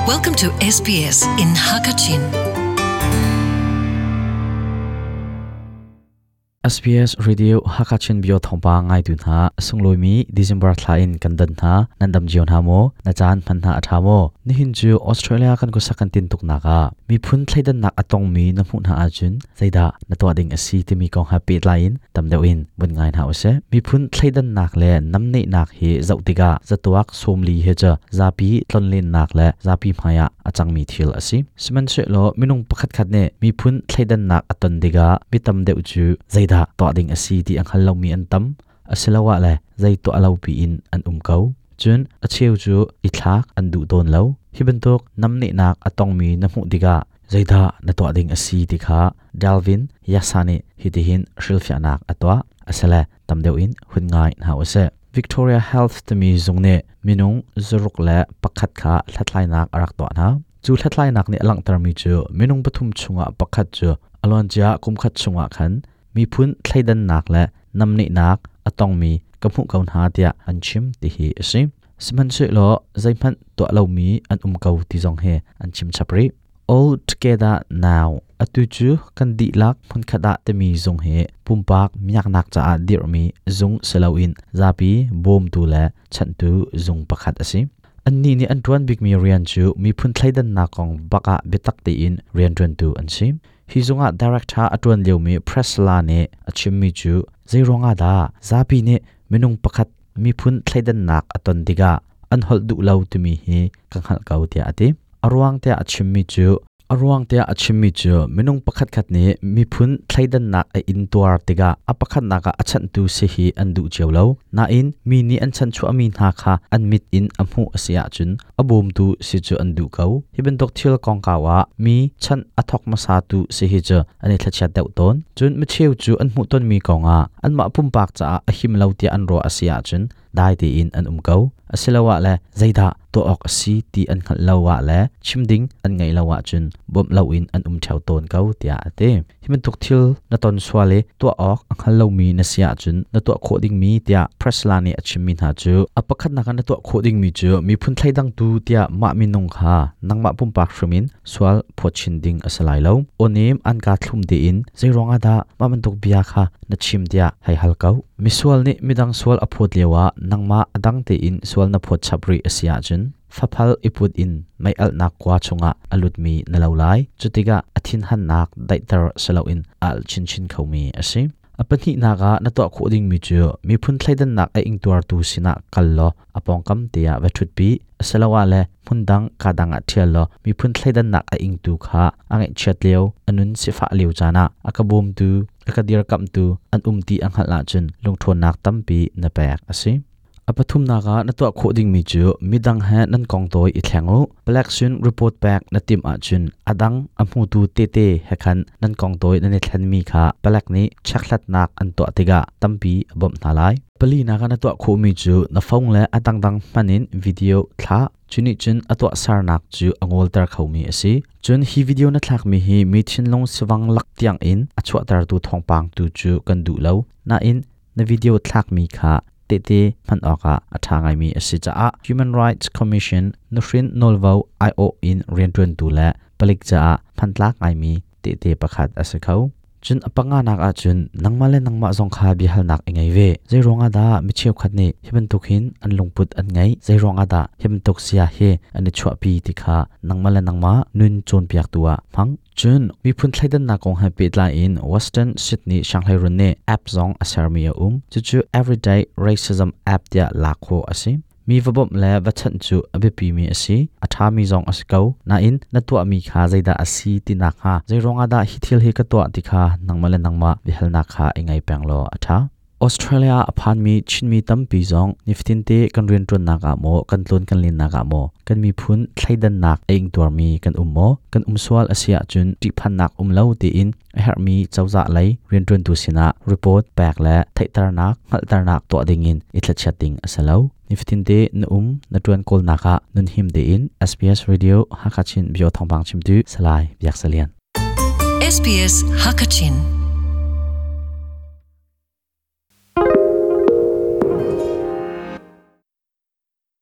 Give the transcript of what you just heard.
Welcome to SBS in Hakachin. SBS Radio Hakachin bio thawngpa ngaitu hna sunglawi December thla in kan dan hna nan dam cio hna maw na caan hman hna a tha maw nihin cu Australia kan kusak kan tin tuk nak ah miphun thleidannak a tongmi na hmuh hna ahcun zeidah na tuah ding a si timi kong he pehtlai in tam deuh in vun ngai hna usih. Miphun thleidannak le namnehnak hi zoh tikah zatuak sawmli hi cu zapi tlonlennak le zapi hmaiah a cangmi thil a si. Sihmanhsehlaw minung pakhatkhat nih miphun thleidannak a ton tikah mi tam deuh cu zeidah tuah ding a si ti a hngal lomi an tam, asiloah le zei tuah lo piin an um ko. Cun a cheu cu i thlak an duh tawn lo. Hi bantuk namnehnak a tongmi na hmuh tikah zeidah na tuah ding a si ti kha Dalvin Yasa nih hitihin hrilhfiahnak a tuah. Asile tam deuh in hun ngai hna usih. Victoria Health timi zung nih minung 61 kha hlathlainak a rak tuah hna. Cu hlathlainak nih a langhtermi cu minung pathum chungah pakhat cu a luancia kumkhat chungah khan miphun thleidannak le namnehnak a tongmi ka hmuh ko hna tiah an chim ti hi a si. Sihmanhsehlaw zeihmanh tuah lomi an um ko ti zong hi an chim chap rih. All Together Now atu cu kan dihlak hmunkhat ah timi zung hi pumpak miaknak caah dirhmi zung si loin zapi bawmtu le chanhtu zung pakhat a si. Annih nih an ṭuan bikmi rian cu miphun thleidannak kong bak ah biatak tein rianṭuantu an si. Hi zungah director a ṭuan liomi Priscilla nih a chimmi cu zeiruangah dah zapi nih minung pakhat miphun thleidannak a ton tikah an holh duh lo timi hi ka hngalh ko tiah a ti. A ruang tiah a chimmi cu A ruang tiah a chimmi cu minung pakhatkhat nih miphun thleidannak a intuar tikah a pakhatnak ah a chanhtu si hi an duh cio lo. Nain mi nih an chanchuahmi hna kha an mit in a hmuh a si ahcun a bawmtu si cu an duh ko. Hi bantuk thil kongkau ah mi chanh a thawk hmasatu si hi cu an i thlachiat deuh tawn. Cun micheu cu an hmuhtonmi kongah anmah pumpak caah a him lo tiah an ruah a si ahcun dai tein an um ko. Asiloah le zeidah tuah awk a si ti an hngalh lo ah le chim ding an ngeih lo ahcun bawmh loin an um ṭheo tawn ko tiah a ti. Hi bantuk thil na ton sual i tuah awk a hngal lomi na si ahcun na tuah khawh dingmi tiah Priscilla nih a chimmi hna cu a pakhatnak ah na tuah khawh dingmi cu miphun thleidangtu tiah mah minung kha nangmah pumpak hrim in sual phawt chin ding a si lai lo. Awnem an ka thlum tein zeiruang ah dah mah bantuk bia kha na chim tiah hei hal ko. Misual nih midang sual a phawt lioah nangmah a dang tein sual na phawt chap rih a si ahcun faphal i put in mei alhnak kua chungah a lutmi na lo lai. Cutikah a thinhannak daihter si loin a alh chinchin khomi a si. A pahnihnak ah na tuah khawh dingmi cu miphun thleidannak a ingtuartu sinah kal law a pawngkam te ah va ṭhutpi asiloah le hmundang kadang ah ṭhial law miphun thleidannak a ingtu kha a ngaihchiat lio a nun sifah lio caan ah a ka bawmtu a ka dirkamhtu an um ti a hngalh ahcun lungṭhawnnak tampi na pek a si. A pathumnak ah na tuah khawh dingmi cu midang he nan kong tawi i thleng u. Palek sin report pek na timh ahcun a dang a hmutu tete he khan nan kong tawi nan i thlenmi kha palek nih chekhlatnak an tuah tikah tampi a bawmh hna lai. Palinak ah na tuah khawhmi cu na phone le a dangdang hman in video thlah. Cu nih cun a tuahsernak cu a ngawlter khomi a si. Cun hi video na thlakmi hi mi thinlung sivang lak tiang in a chuahtertu thawngpang tu cu kan duh lo. Nain na video thlakmi kha tehte hman awkah a ṭha ngaimi a si caah Human Rights Commission nuhrin nawlvo aiawh in rianṭuantu le palik caah hmantlak ngaimi tehte pakhat a si kho. Cun a panganak ahcun nangmah le nangmah zong kha biahalnak i ngei ve. Zei ruangah dah mi cheukhat nih hi bantuk hin an lungput an ngeih? Zei ruangah dah hi bantuk sia hi an i chuahpi ti kha nangmah le nangmah nun cawnpiaktu ah hmang. Cun miphun thleidannak kong he pehtlai in Western Sydney Sianghleirun nih app zong a sermi a um. Cucu Everyday Racism app tiah lak khawh a si. Mi va bawmh le va chanh cu a biapimi a si, a ṭhami zong a si ko. Nain na tuahmi kha zeidah a si ti nakhnga zeiruangah dah hi thil hi ka tuah ti kha nangmah le nangmah biahalnak kha i ngei peng law a ṭha. Australia a phanmi Chinmi tampi zong nifatinte kan rianṭuannak ah maw, kan tlawn kan lennak ah maw, kan miphun thleidannak a ingtuarmi kan um maw? Kan um sual a si ahcun ṭihphannak um lo tiin a herhmi cozah lei rianṭuantu sinah report pek le theihternak, hngalhternak tuah dingin i thlachiat ding a si lo. Nifatinte na um, na ṭuan kawlnak ah nunhim tein SBS Radio Hakha Chin Bio thawngpang chimtu Salai Biak Salian. SBS Hakachin.